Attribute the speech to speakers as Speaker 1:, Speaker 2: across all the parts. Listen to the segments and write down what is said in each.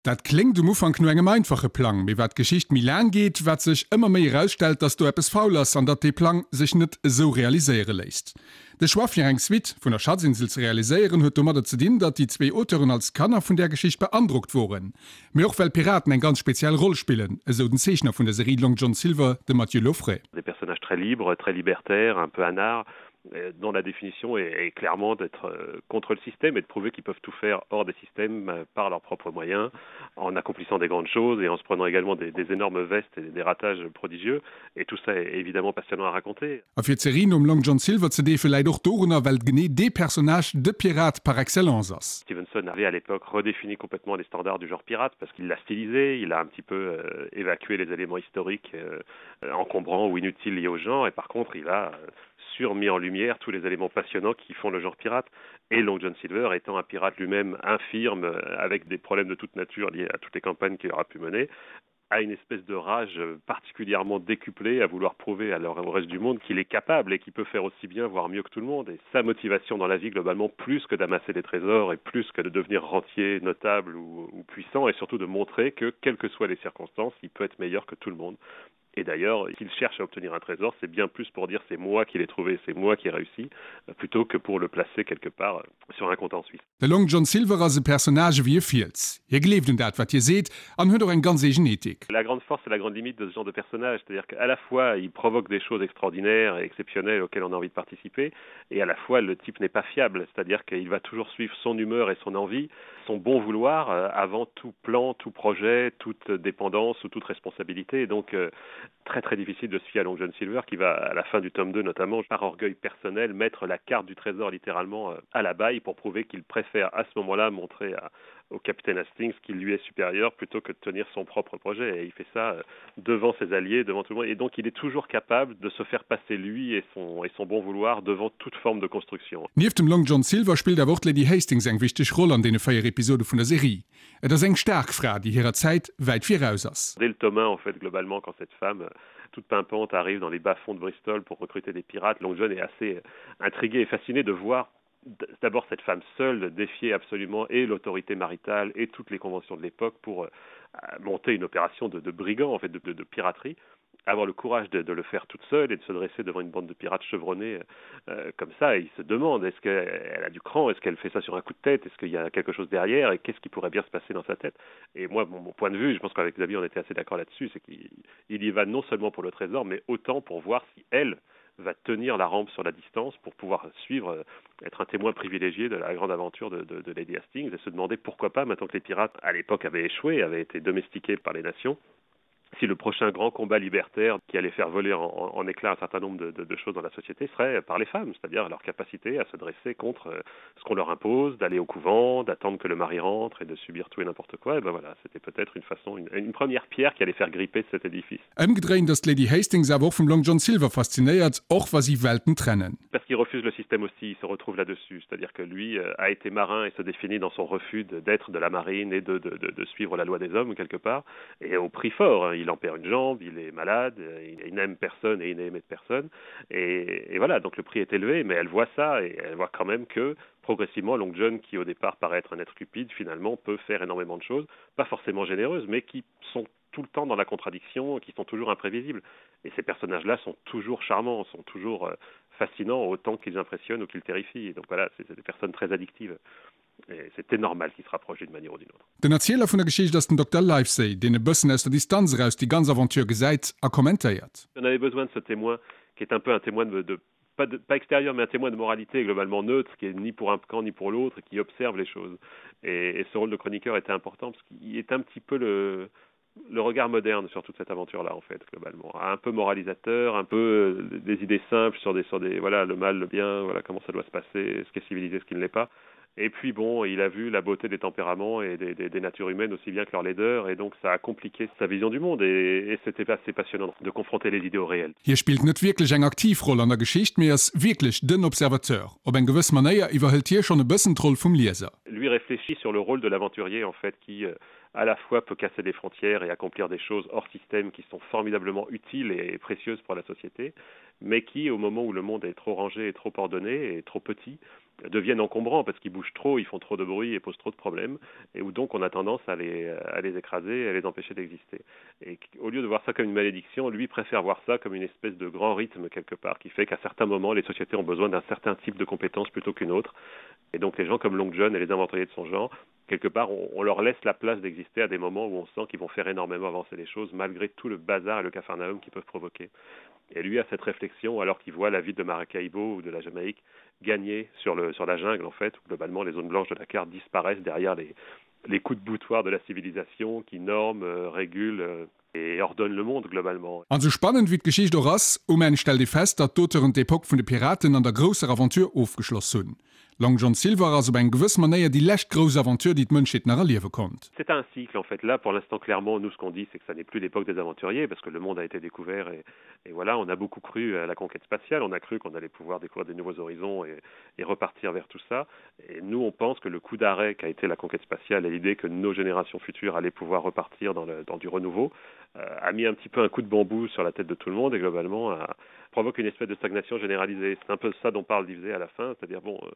Speaker 1: Dat kléngt um Ufank no engem einfache Plang, mee wat d'Geschicht méi laang geet, wat sech ëmmer méi erausstellt, datt do eppes faul ass an datt dee Plang sech net esou realiséiere léisst. De Choix fir eng Suite vun der Schatzinsel ze realiséieren huet domadder ze dinn, datt déi zwee Auteuren als Kanner vun där Geschicht beandrockt woren, mee och well Piraten eng ganz speziell Roll spillen, esou den Zeechner vun der Serie Long John Silver, de Mathieu Lauffray.
Speaker 2: Des personnages très libres, très libertaires, un peu anards, dont la définition est, est clairement d'être euh, contre le système et de prouver qu'ils peuvent tout faire hors des systèmes euh, par leurs propres moyens, en accomplissant des grandes choses et en se prenant également des, des énormes vestes et des ratages prodigieux. Et tout ça est évidemment passionnant à raconter.
Speaker 1: A fir d'Serie nom Long John Silver ze deefe läit och dorunner, well genee dee Personnage de Pirat par excellence ass.
Speaker 2: Stevenson avait à l'époque redéfini complètement les standards du genre pirate parce qu'il l'a stylisé, il a un petit peu euh, évacué les éléments historiques euh, encombrants ou inutiles liés au genre et par contre il a euh, surmis en lumière tous les éléments passionnants qui font le genre pirate et Long John Silver étant un pirate lui-même infirme euh, avec des problèmes de toute nature liés à toutes les campagnes qu'il aura pu mener a une espèce de rage particulièrement décuplée à vouloir prouver à au reste du monde qu'il est capable et qu'il peut faire aussi bien voire mieux que tout le monde et sa motivation dans la vie globalement plus que d'amasser des trésors et plus que de devenir rentier notable ou, ou puissant et surtout de montrer que quelles que soient les circonstances il peut être meilleur que tout le monde Et d'ailleurs, qu'il cherche à obtenir un trésor, c'est bien plus pour dire c'est moi qui l'ai trouvé, c'est moi qui ai réussi, plutôt que pour le placer quelque part euh, sur un compte en Suisse.
Speaker 1: De Long John Silver ass e Personnage ewéi e Fiels. Hie gleeft un dat, wat hie seet, an huet och eng ganz eegen Ethik.
Speaker 2: La grande force et la grande limite de ce genre de personnage, c'est-à-dire qu'à la fois il provoque des choses extraordinaires et exceptionnelles auxquelles on a envie de participer, et à la fois le type n'est pas fiable, c'est-à-dire qu'il va toujours suivre son humeur et son envie, son bon vouloir euh, avant tout plan, tout projet, toute dépendance ou toute responsabilité. Et donc euh, très très difficile de se fier à Long John Silver qui va à la fin du tome 2 notamment par orgueil personnel mettre la carte du trésor littéralement euh, à la baille pour prouver qu'il préfère à ce moment-là montrer à, au capitaine Hastings qui lui est supérieur plutôt que de tenir son propre projet et il fait ça euh, devant ses alliés devant tout le monde et donc il est toujours capable de se faire passer lui et son et son bon vouloir devant toute forme de construction.
Speaker 1: Nieft dem Long John Silver spillt awer och d'Lady Hastings eng wichteg Roll an deene 4 Episode vun der Serie. Et ass eng staark Fra, déi hirer Zäit wäit viraus ass.
Speaker 2: Dès le tome 1 en fait globalement quand cette femme euh, toute pimpante arrive dans les bas-fonds de Bristol pour recruter des pirates, Long John est assez euh, intrigué et fasciné de voir d'abord cette femme seule défier absolument et l'autorité maritale et toutes les conventions de l'époque pour euh, monter une opération de, de brigands en fait de, de, de piraterie avoir le courage de, de le faire toute seule et de se dresser devant une bande de pirates chevronnés euh, comme ça et il se demande est-ce qu'elle a du cran est-ce qu'elle fait ça sur un coup de tête est-ce qu'il y a quelque chose derrière et qu'est-ce qui pourrait bien se passer dans sa tête et moi mon, mon point de vue je pense qu'avec Xavier on était assez d'accord là-dessus c'est qu'il y va non seulement pour le trésor mais autant pour voir si elle va tenir la rampe sur la distance pour pouvoir suivre euh, être un témoin privilégié de la grande aventure de, de, de Lady Hastings et se demander pourquoi pas maintenant que les pirates à l'époque avaient échoué avaient été domestiqués par les nations si le prochain grand combat libertaire qui allait faire voler en, en, en éclat un certain nombre de, de, de choses dans la société serait par les femmes, c'est-à-dire leur capacité à se dresser contre euh, ce qu'on leur impose, d'aller au couvent, d'attendre que le mari rentre et de subir tout et n'importe quoi, et ben voilà, c'était peut-être une façon une, une première pierre qui allait faire gripper cet édifice.
Speaker 1: Ëmgedréint ass d'Lady Hastings awer och vum Long John Silver faszinéiert, och wa si Welten trennen.
Speaker 2: Parce qu'il refuse le système aussi, il se retrouve là-dessus, c'est-à-dire que lui euh, a été marin et se définit dans son refus d'être de, de la marine et de, de, de, de suivre la loi des hommes quelque part et au prix fort hein. il en perd une jambe, il est malade, il, il n'aime personne et il n'aimait personne et, et voilà donc le prix est élevé mais elle voit ça et elle voit quand même que progressivement Long John qui au départ paraît être un être cupide finalement peut faire énormément de choses pas forcément généreuses mais qui sont tout le temps dans la contradiction qui sont toujours imprévisibles et ces personnages là sont toujours charmants sont toujours euh, fascinants autant qu'ils impressionnent ou qu'ils terrifient donc voilà c'est des personnes très addictives et c'était normal qu'ils se rapprochent d'une manière ou d'une autre.
Speaker 1: Den Erzieler vun der Geschicht ass den Dokter Livesey, deen e bëssen aus der Distanz eraus déi ganz Aventure gesäit a kommentéiert.
Speaker 2: On avait besoin de ce témoin qui est un peu un témoin de, de pas, de, pas extérieur mais un témoin de moralité globalement neutre qui est ni pour un camp ni pour l'autre qui observe les choses et, et ce rôle de chroniqueur était important parce qu'il est un petit peu le le regard moderne sur toute cette aventure là en fait globalement un peu moralisateur un peu euh, des idées simples sur des sur des voilà le mal le bien voilà comment ça doit se passer ce qui est civilisé ce qui ne l'est pas et puis bon il a vu la beauté des tempéraments et des, des, des natures humaines aussi bien que leur laideur et donc ça a compliqué sa vision du monde et, et c'était assez passionnant de confronter les idées au réel.
Speaker 1: Hie spillt net wierklech eng aktiv Roll an der Geschicht, mee ass wierklech den Observateur. Op eng gewëss Manéier iwwerhëlt hie schonn e bëssen d'Roll vum Lieser.
Speaker 2: Lui réfléchit sur le rôle de l'aventurier en fait qui euh, à la fois peut casser des frontières et accomplir des choses hors système qui sont formidablement utiles et précieuses pour la société, mais qui au moment où le monde est trop rangé et trop ordonné et trop petit, deviennent encombrants parce qu'ils bougent trop, ils font trop de bruit et posent trop de problèmes et où donc on a tendance à les, à les écraser et à les empêcher d'exister. Et au lieu de voir ça comme une malédiction, lui préfère voir ça comme une espèce de grand rythme quelque part qui fait qu'à certains moments les sociétés ont besoin d'un certain type de compétences plutôt qu'une autre. Et donc les gens comme Long John et les aventuriers de son genre, quelque part on, on leur laisse la place d'exister à des moments où on sent qu'ils vont faire énormément avancer les choses malgré tout le bazar et le capharnaüm qu'ils peuvent provoquer. Et lui a cette réflexion alors qu'il voit la ville de Maracaibo ou de la Jamaïque gagner sur, le, sur la jungle en fait, où globalement les zones blanches de la carte disparaissent derrière les, les coups de boutoir de la civilisation qui norment, euh, régulent euh, et ordonnent le monde globalement.
Speaker 1: An sou spannend wéi d'Geschicht och ass, um Enn stellt ee fest, datt d'Auteuren d'Epoque vun de Piraten an der grousser Aventure ofgeschloss hunn. Long John Silver ass op eng gewëss Manéier déi lescht grouss Aventure, déi d'Mënschheet nach erliewe konnt.
Speaker 2: C'est un cycle en fait. Là, pour l'instant, clairement, nous, ce qu'on dit, c'est que ça n'est plus l'époque des aventuriers, parce que le monde a été découvert et, et voilà, on a beaucoup cru à la conquête spatiale, on a cru qu'on allait pouvoir découvrir des nouveaux horizons et, et repartir vers tout ça. Et nous, on pense que le coup d'arrêt qu'a été la conquête spatiale et l'idée que nos générations futures allaient pouvoir repartir dans, le, dans du renouveau euh, a mis un petit peu un coup de bambou sur la tête de tout le monde et globalement a, provoque une espèce de stagnation généralisée. C'est un peu ça dont parle Livesey à la fin, c'est-à-dire bon, euh,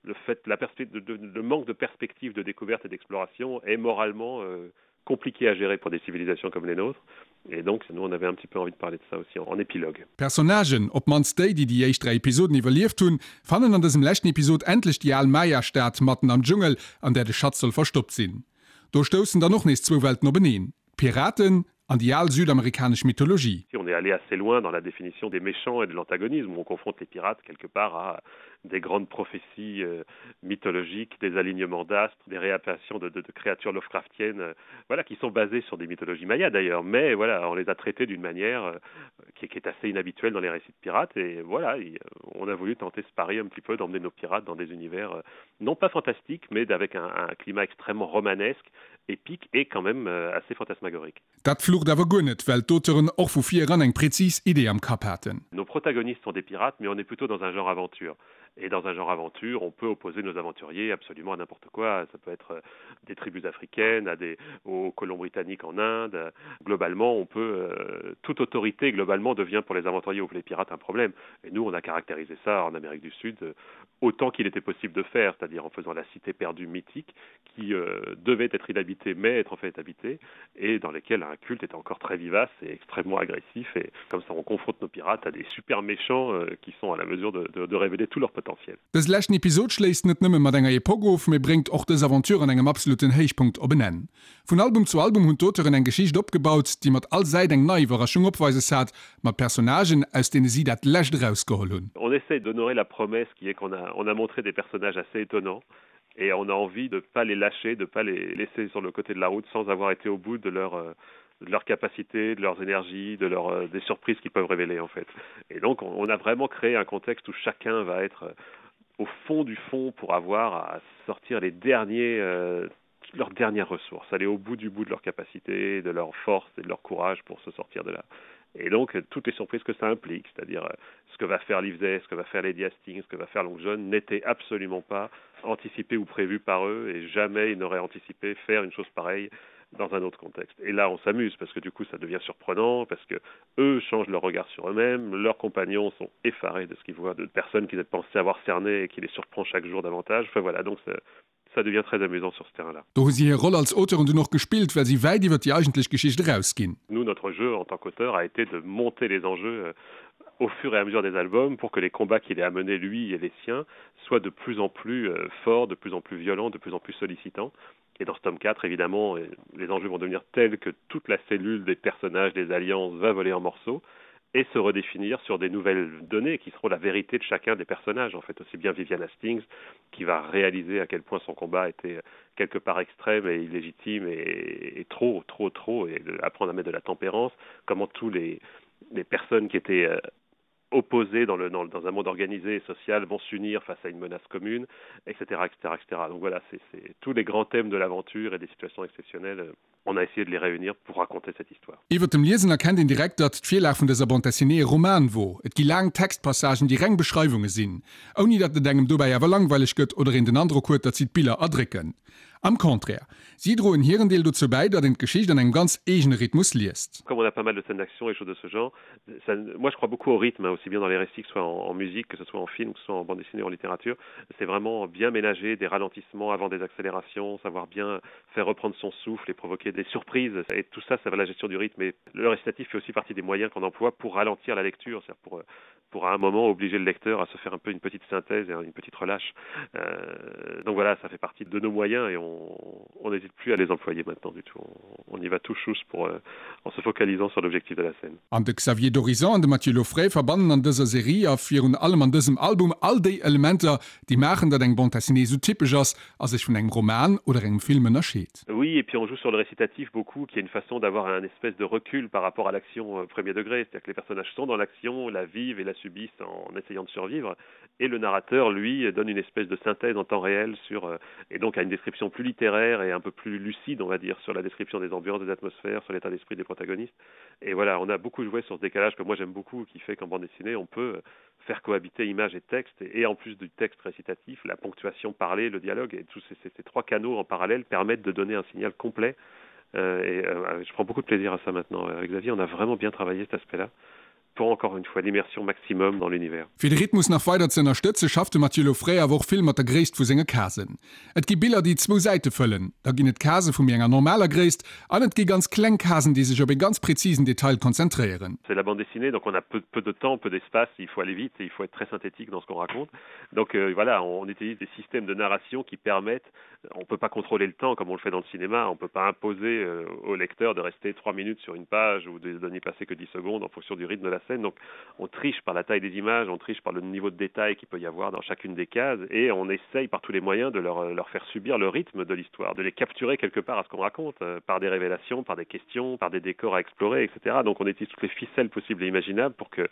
Speaker 2: le fait la de, de, le manque de perspective de découverte et d'exploration est moralement euh, compliqué à gérer pour des civilisations comme les nôtres. Et donc nous on avait un petit peu envie de parler de ça aussi en, en épilogue.
Speaker 1: D'Personnagen, op d'mannst déi, déi déi éischt 3 Episoden iwwerlieft hunn, fannen an dësem leschten Episod endlech déi al Maya-Stad matten am Dschungel, an där de Schatz soll verstoppt sinn. Do stoussen dann och nees zwou Welten openeen, d'Piraten an déi al südamerikanesch Mythologie.
Speaker 2: On est allé assez loin dans la définition des méchants et de l'antagonisme, où on confronte les pirates quelque part à des grandes prophéties euh, mythologiques, des alignements d'astres, des réapparitions de, de, de créatures Lovecraftiennes, euh, voilà, qui sont basées sur des mythologies mayas d'ailleurs, mais voilà, on les a traitées d'une manière euh, qui, qui est assez inhabituelle dans les récits de pirates, et voilà, et, euh, on a voulu tenter ce pari un petit peu d'emmener nos pirates dans des univers euh, non pas fantastiques, mais avec un, un climat extrêmement romanesque, épique et quand même euh, assez fantasmagorique.
Speaker 1: Dat flucht awer guer net, well d'Auteuren och vu vir eran eng präzis Idee am Kapp haten.
Speaker 2: Nos protagonistes sont des pirates, mais on est plutôt dans un genre aventure. Et dans un genre aventure, on peut opposer nos aventuriers absolument à n'importe quoi. Ça peut être euh, des tribus africaines, à des, aux colons britanniques en Inde. Globalement, on peut, euh, toute autorité globalement devient pour les aventuriers ou pour les pirates un problème. Et nous, on a caractérisé ça en Amérique du Sud euh, autant qu'il était possible de faire, c'est-à-dire en faisant la cité perdue mythique qui euh, devait être inhabitée mais être en fait habitée et dans lesquelles un culte est encore très vivace et extrêmement agressif et comme ça on confronte nos pirates à des super méchants euh, qui sont à la mesure de, de, de révéler tout leur potentiel.
Speaker 1: Dëse leschten Episod schléisst net nëmme mat enger Epoque of, mee bréngt och dës Aventure an engem absoluten Héichpunkt op en Enn. Vun Album zu Album hunn d'Auteuren eng Geschicht opgebaut, déi mat all Säit eng nei Iwwerraschung opweises hat, mat Personnagen, aus deene si dat Lescht erausgeholl hunn.
Speaker 2: On essaie d'honorer la promesse qui est qu'on a, on a montré des personnages assez étonnants et on a envie de pas les lâcher, de pas les laisser sur le côté de la route sans avoir été au bout de leur euh, de leur capacité, de leurs énergies, de leur, euh, des surprises qu'ils peuvent révéler en fait. Et donc on, on a vraiment créé un contexte où chacun va être euh, au fond du fond pour avoir à sortir les derniers euh, leurs dernières ressources, aller au bout du bout de leur capacité, de leur force et de leur courage pour se sortir de là. Et donc toutes les surprises que ça implique, c'est-à-dire euh, ce que va faire Livesey, ce que va faire Lady Hastings, ce que va faire Long John n'était absolument pas anticipé ou prévu par eux et jamais ils n'auraient anticipé faire une chose pareille dans un autre contexte. Et là on s'amuse parce que du coup ça devient surprenant parce que eux changent leur regard sur eux-mêmes, leurs compagnons sont effarés de ce qu'ils voient de personnes qu'ils pensaient avoir cerné et qui les surprend chaque jour davantage. Enfin voilà donc ça, ça devient très amusant sur ce terrain là.
Speaker 1: Do hu si hir Roll als Auteuren dunn och gespillt, well si wäit iwwer déi eigentlech Geschicht erausginn.
Speaker 2: Nous, notre jeu en tant qu'auteur a été de monter les enjeux euh, au fur et à mesure des albums pour que les combats qu'il ait amenés lui et les siens soient de plus en plus euh, forts, de plus en plus violents, de plus en plus sollicitants. Et dans ce tome 4, évidemment, euh, les enjeux vont devenir tels que toute la cellule des personnages, des alliances va voler en morceaux et se redéfinir sur des nouvelles données qui seront la vérité de chacun des personnages en fait aussi bien Vivian Hastings qui va réaliser à quel point son combat était quelque part extrême et illégitime et, et trop trop trop et de, apprendre à mettre de la tempérance comment tous les les personnes qui étaient euh, opposés dans, le, dans, dans un monde organisé et social vont s'unir face à une menace commune, etc. etc., etc. Donc voilà, c'est tous les grands thèmes de l'aventure et des situations exceptionnelles, euh, on a essayé de les réunir pour raconter cette histoire.
Speaker 1: Iwwer dem Liesen erkennt een direkt, datt d'Virlag vun dëser Bande dessinée e Roman wor. Et gi laang Textpassagen, déi reng Beschreiwunge sinn, ouni datt et engem dobäi awer langweileg gëtt oder een den Androck huet, datt si d'Biller erdrécken. Am Contraire, si droen hiren Deel dozou bäi, datt een d'Geschicht an engem ganz eegene Rhythmus liest.
Speaker 2: Comme on a pas mal de scènes d'action et choses de ce genre, ça, moi je crois beaucoup au rythme, aussi bien dans les récits que ce soit en, en musique, que ce soit en film, que ce soit en bande dessinée, en littérature. C'est vraiment bien ménager des ralentissements avant des accélérations, savoir bien faire reprendre son souffle et provoquer des surprises. Et tout ça, ça va la gestion du rythme. Et le récitatif fait aussi partie des moyens qu'on emploie pour ralentir la lecture, c'est-à-dire pour, pour à un moment obliger le lecteur à se faire un peu une petite synthèse et une petite relâche. Euh, donc voilà, ça fait partie de nos moyens et on n'hésite plus à les employer maintenant du tout. On, on y va tout chousse pour, euh, en se focalisant sur l'objectif de la scène.
Speaker 1: An de Xavier Dorizon an de Mathieu Lauffray verbannen an dëser Serie a virun allem an dësem Album all déi Elementer, déi maachen, datt eng Bande dessinée esou typesch ass a sech vun engem Roman oder engem Film ënnerscheet.
Speaker 2: Oui, et puis on joue sur le récitatif beaucoup, qui est une façon d'avoir un espèce de recul par rapport à l'action euh, premier degré, c'est-à-dire que les personnages sont dans l'action, la vivent et la subissent en essayant de survivre, et le narrateur, lui, donne une espèce de synthèse en temps réel sur, euh, et donc a une description plus littéraire et un peu plus lucide, on va dire, sur la description des ambiances, des atmosphères, sur l'état d'esprit des protagonistes. Et voilà, on a beaucoup joué sur ce décalage que moi j'aime beaucoup, qui fait qu'en bande dessinée, on peut faire cohabiter image et texte, et, et en plus du texte récitatif, la ponctuation parlée, le dialogue, et tous ces, ces, ces trois canaux en parallèle permettent de donner un signal complet. Euh, et euh, je prends beaucoup de plaisir à ça maintenant. Avec Xavier, on a vraiment bien travaillé cet aspect-là pour encore une fois l'immersion maximum dans l'univers.
Speaker 1: Fir de Rhythmus nach weider ze ënnerstëtze schafft de Mathieu Lauffray awer och vill mat der Gréisst vu senge Casen. Et gi Biller déi zwou Säite fëllen, da ginn et Case vu méi enger normaler Gréisst an et gi ganz kleng Casen déi sech op ee ganz präzisen Detail konzentréieren.
Speaker 2: C'est la bande dessinée, donc on a peu, peu de temps, peu d'espace, il faut aller vite et il faut être très synthétique dans ce qu'on raconte. Donc euh, voilà, on utilise des systèmes de narration qui permettent on ne peut pas contrôler le temps comme on le fait dans le cinéma, on ne peut pas imposer euh, au lecteur de rester trois minutes sur une page ou de, de n'y passer que 10 secondes en fonction du rythme de la scène. Donc on triche par la taille des images, on triche par le niveau de détail qu'il peut y avoir dans chacune des cases et on essaye par tous les moyens de leur, leur faire subir le rythme de l'histoire, de les capturer quelque part à ce qu'on raconte, euh, par des révélations, par des questions, par des décors à explorer, etc. Donc on utilise toutes les ficelles possibles et imaginables pour que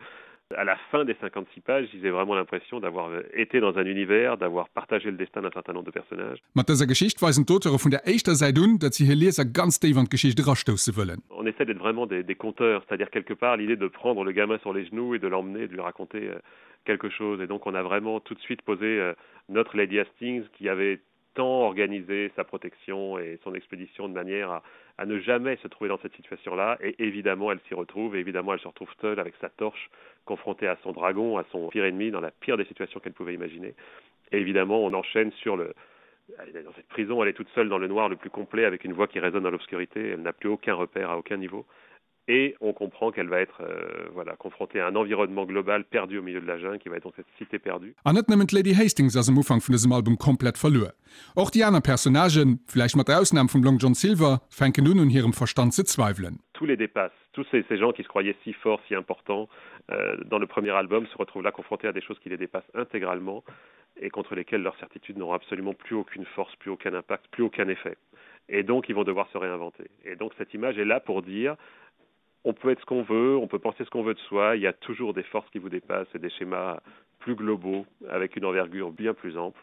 Speaker 2: à la fin des 56 pages, ils aient vraiment l'impression d'avoir euh, été dans un univers, d'avoir partagé le destin d'un certain nombre de personnages.
Speaker 1: Mat dëser Geschicht weisen d'Auteure vun der éischter Säit un, datt si hir Lieser ganz déif an d'Geschicht erastousse wëllen.
Speaker 2: On essaie d'être vraiment des, des conteurs, c'est-à-dire quelque part l'idée de prendre le gamin sur les genoux et de l'emmener, de lui raconter euh, quelque chose. Et donc on a vraiment tout de suite posé euh, notre Lady Hastings qui avait tant organisé sa protection et son expédition de manière à, à ne jamais se trouver dans cette situation-là. Et évidemment, elle s'y retrouve, et évidemment, elle se retrouve seule avec sa torche, confrontée à son dragon, à son pire ennemi, dans la pire des situations qu'elle pouvait imaginer. Et évidemment, on enchaîne sur le, dans cette prison, elle est toute seule dans le noir le plus complet, avec une voix qui résonne dans l'obscurité. Elle n'a plus aucun repère à aucun niveau. Et on comprend qu'elle va être euh, voilà, confrontée à un environnement global perdu au milieu de la jungle, qui va être dans cette cité perdue.
Speaker 1: An net nëmmen d'Lady Hastings ass am Ufank vun dësem Album komplett verluer. Och déi aner Personnagen, vläicht mat der Ausnam vum Long John Silver, fänken un, un hirem Verstand ze zweiwelen.
Speaker 2: Tous les dépassent. Tous ces, ces gens qui se croyaient si forts, si importants euh, dans le premier album se retrouvent là confrontés à des choses qui les dépassent intégralement et contre lesquelles leurs certitudes n'auront absolument plus aucune force, plus aucun impact, plus aucun effet. Et donc ils vont devoir se réinventer. Et donc cette image est là pour dire on peut être ce qu'on veut, on peut penser ce qu'on veut de soi, il y a toujours des forces qui vous dépassent et des schémas plus globaux avec une envergure bien plus ample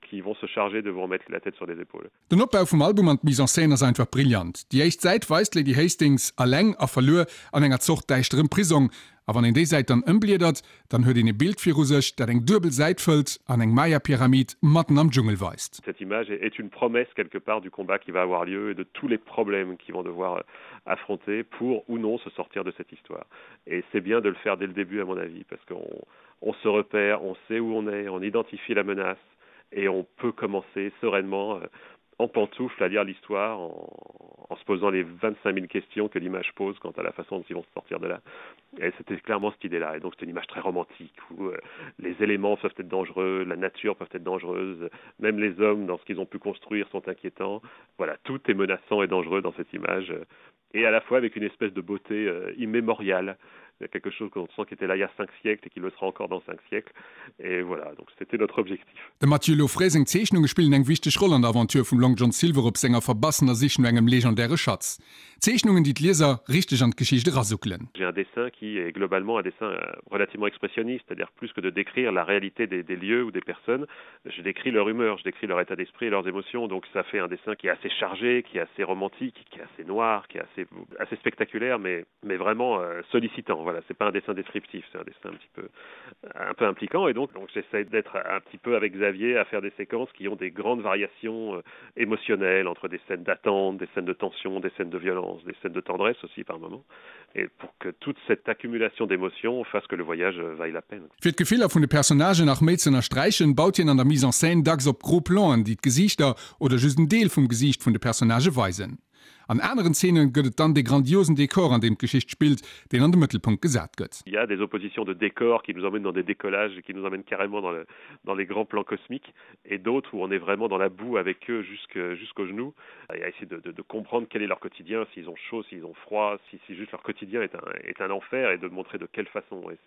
Speaker 2: qui vont se charger de vous remettre la tête sur les épaules.
Speaker 1: Den Opbau vum Album an d'Mise en scène ass einfach brillant. Déi éischt Säit weist d'Lady Hastings alleng a verluer an enger Zort däischterem Prisong, a wann een déi Säit dann ëmbliedert, dann huet een e Bild viru sech, dat eng duebel Säit fëllt an eng Maya-Pyramid matten am Dschungel weist.
Speaker 2: Cette image est une promesse quelque part du combat qui va avoir lieu et de tous les problèmes qu'ils vont devoir affronter pour ou non se sortir de cette histoire. Et c'est bien de le faire dès le début à mon avis parce qu'on on se repère, on sait où on est, on identifie la menace et on peut commencer sereinement euh, en pantoufle à lire l'histoire en, en se posant les 25 000 questions que l'image pose quant à la façon dont ils vont se sortir de là. Et c'était clairement cette idée là et donc c'est une image très romantique où euh, les éléments peuvent être dangereux, la nature peut être dangereuse, même les hommes dans ce qu'ils ont pu construire sont inquiétants. Voilà, tout est menaçant et dangereux dans cette image et à la fois avec une espèce de beauté euh, immémoriale quelque chose qu'on sent qui était là il y a cinq siècles et qui le sera encore dans cinq siècles et voilà donc c'était notre objectif.
Speaker 1: Dem Mathieu Lauffray seng Zeechnunge spillen eng wichteg Roll an der Aventure vum Long John Silver op senger verbassener Sich no engem legendäre Schatz. Zeechnungen, déi d'Lieser richteg an d'Geschicht erasuckelen.
Speaker 2: J'ai un dessin qui est globalement un dessin relativement expressionniste, c'est-à-dire plus que de décrire la réalité des, des lieux ou des personnes, je décris leur humeur, je décris leur état d'esprit et leurs émotions. Donc ça fait un dessin qui est assez chargé, qui est assez romantique, qui est assez noir, qui est assez, assez spectaculaire, mais, mais vraiment euh, sollicitant. Voilà, c'est pas un dessin descriptif, c'est un dessin un petit peu, un peu impliquant. Et donc, donc j'essaie d'être un petit peu avec Xavier à faire des séquences qui ont des grandes variations euh, émotionnelles entre des scènes d'attente, des scènes de tension, des scènes de violence, des scènes de tendresse aussi par moments, et pour que toute cette accumulation d'émotions fasse que le voyage euh, vaille la peine.
Speaker 1: Fir d'Gefiller vun de Personnagen nach méi z'ënnersträichen, baut hien an der Mise en scène dacks op gros Plan'en, déi d'Gesiichter oder just en Deel vum Gesiicht vun de Personnagë weisen. An aneren Zeene gëtt et dann dee grandiosen Dekor, an deem d'Geschicht spillt, deen an de Mëttelpunkt gesat gëtt.
Speaker 2: Il y a des oppositions de décors qui nous emmènent dans des décollages et qui nous emmènent carrément dans le, dans les grands plans cosmiques et d'autres où on est vraiment dans la boue avec eux jusqu'au genou et à essayer de, de, de comprendre quel est leur quotidien, s'ils ont chaud, s'ils ont froid, si, si juste leur quotidien est un, est un enfer et de montrer de quelle façon. Et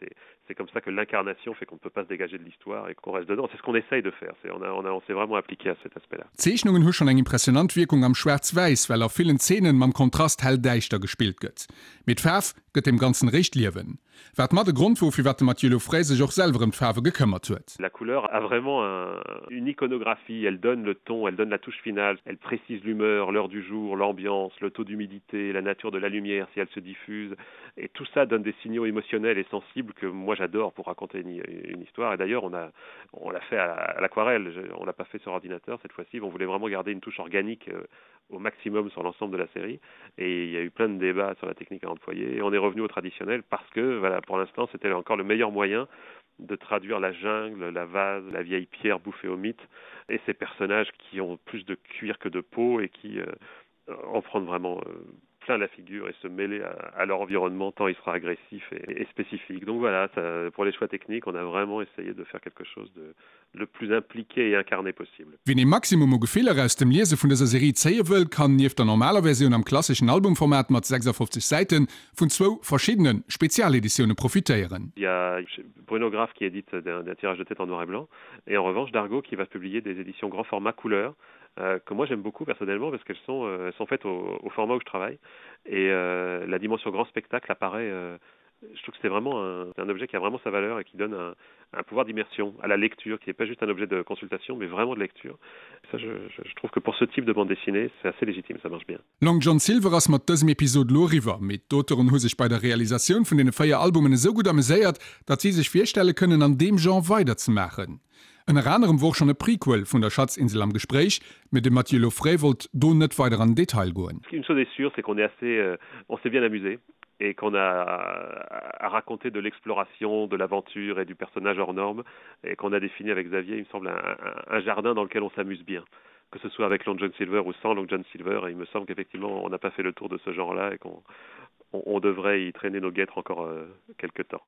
Speaker 2: c'est comme ça que l'incarnation fait qu'on ne peut pas se dégager de l'histoire et qu'on reste dedans. C'est ce qu'on essaye de faire. On, a, on, a, on s'est vraiment appliqué à cet aspect-là.
Speaker 1: D'Zeechnungen hu schonn eng impressionant Wierkung am Schwaarz-Wäiss, well a villen Zeenen mam Kontrast hell-däischter gespillt gëtt. Mee d'Faarf gëtt deem Ganzen eréischt Liewen. Wat mat e Grond wor, firwat de Mathieu Lauffray sech och selwer ëm d'Faarwe gekëmmert huet.
Speaker 2: La couleur a vraiment un, une iconographie, elle donne le ton, elle donne la touche finale, elle précise l'humeur, l'heure du jour, l'ambiance, le taux d'humidité, la nature de la lumière si elle se diffuse. Et tout ça donne des signaux émotionnels et sensibles que moi j'adore pour raconter une, une histoire. Et d'ailleurs, on a, on l'a fait à, à l'aquarelle, on l'a pas fait sur ordinateur cette fois-ci, on voulait vraiment garder une touche organique euh, au maximum sur l'ensemble de la série. Et il y a eu plein de débats sur la technique à employer. Et on est revenu au traditionnel parce que voilà, pour l'instant, c'était encore le meilleur moyen de traduire la jungle, la vase, la vieille pierre bouffée au mythe et ces personnages qui ont plus de cuir que de peau et qui euh, en prennent vraiment euh, plein la figure et se mêler à, à leur environnement tant il sera agressif et, et spécifique. Donc voilà, ça, pour les choix techniques, on a vraiment essayé de faire quelque chose de le plus impliqué et incarné possible.
Speaker 1: Wien ee Maximum u Gefiller aus dem Liese vun dëser Serie zéie wëll, kann nieft der normaler Versioun am klasseschen Albumformat mat 56 Säite vun zwou verschiddene Spezialeditioune profitéieren.
Speaker 2: Il y a Bruno Graf qui édite d'un tirage de tête en noir et blanc et en revanche Dargaud qui va publier des éditions grand format couleur euh, que moi j'aime beaucoup personnellement parce qu'elles sont, euh, sont faites au, au format où je travaille et euh, la dimension grand spectacle apparaît euh, je trouve que c'est vraiment un, un objet qui a vraiment sa valeur et qui donne un, un pouvoir d'immersion à la lecture qui n'est pas juste un objet de consultation mais vraiment de lecture ça je, je, je trouve que pour ce type de bande dessinée c'est assez légitime ça marche bien
Speaker 1: Long John Silver ass mat dësem Episod lo eriwwer, mee d'Auteuren hu sech bei der Realisatioun vun deene 4 Albumen esou gutt ameséiert, datt si sech virstelle kënnen an deem Genre weiderzemaachen. Ënner anerem wor schonn e Prequel vun der Schatzinsel am Gespréich, mee de Mathieu Lauffray wollt do net weider an den Detail goen.
Speaker 2: Une chose est sûre, c'est qu'on est assez, euh, on s'est bien amusé et qu'on a à raconter de l'exploration, de l'aventure et du personnage hors norme et qu'on a défini avec Xavier, il me semble, un, un, un jardin dans lequel on s'amuse bien que ce soit avec Long John Silver ou sans Long John Silver et il me semble qu'effectivement on n'a pas fait le tour de ce genre là et qu'on on, on devrait y traîner nos guêtres encore euh, quelque temps.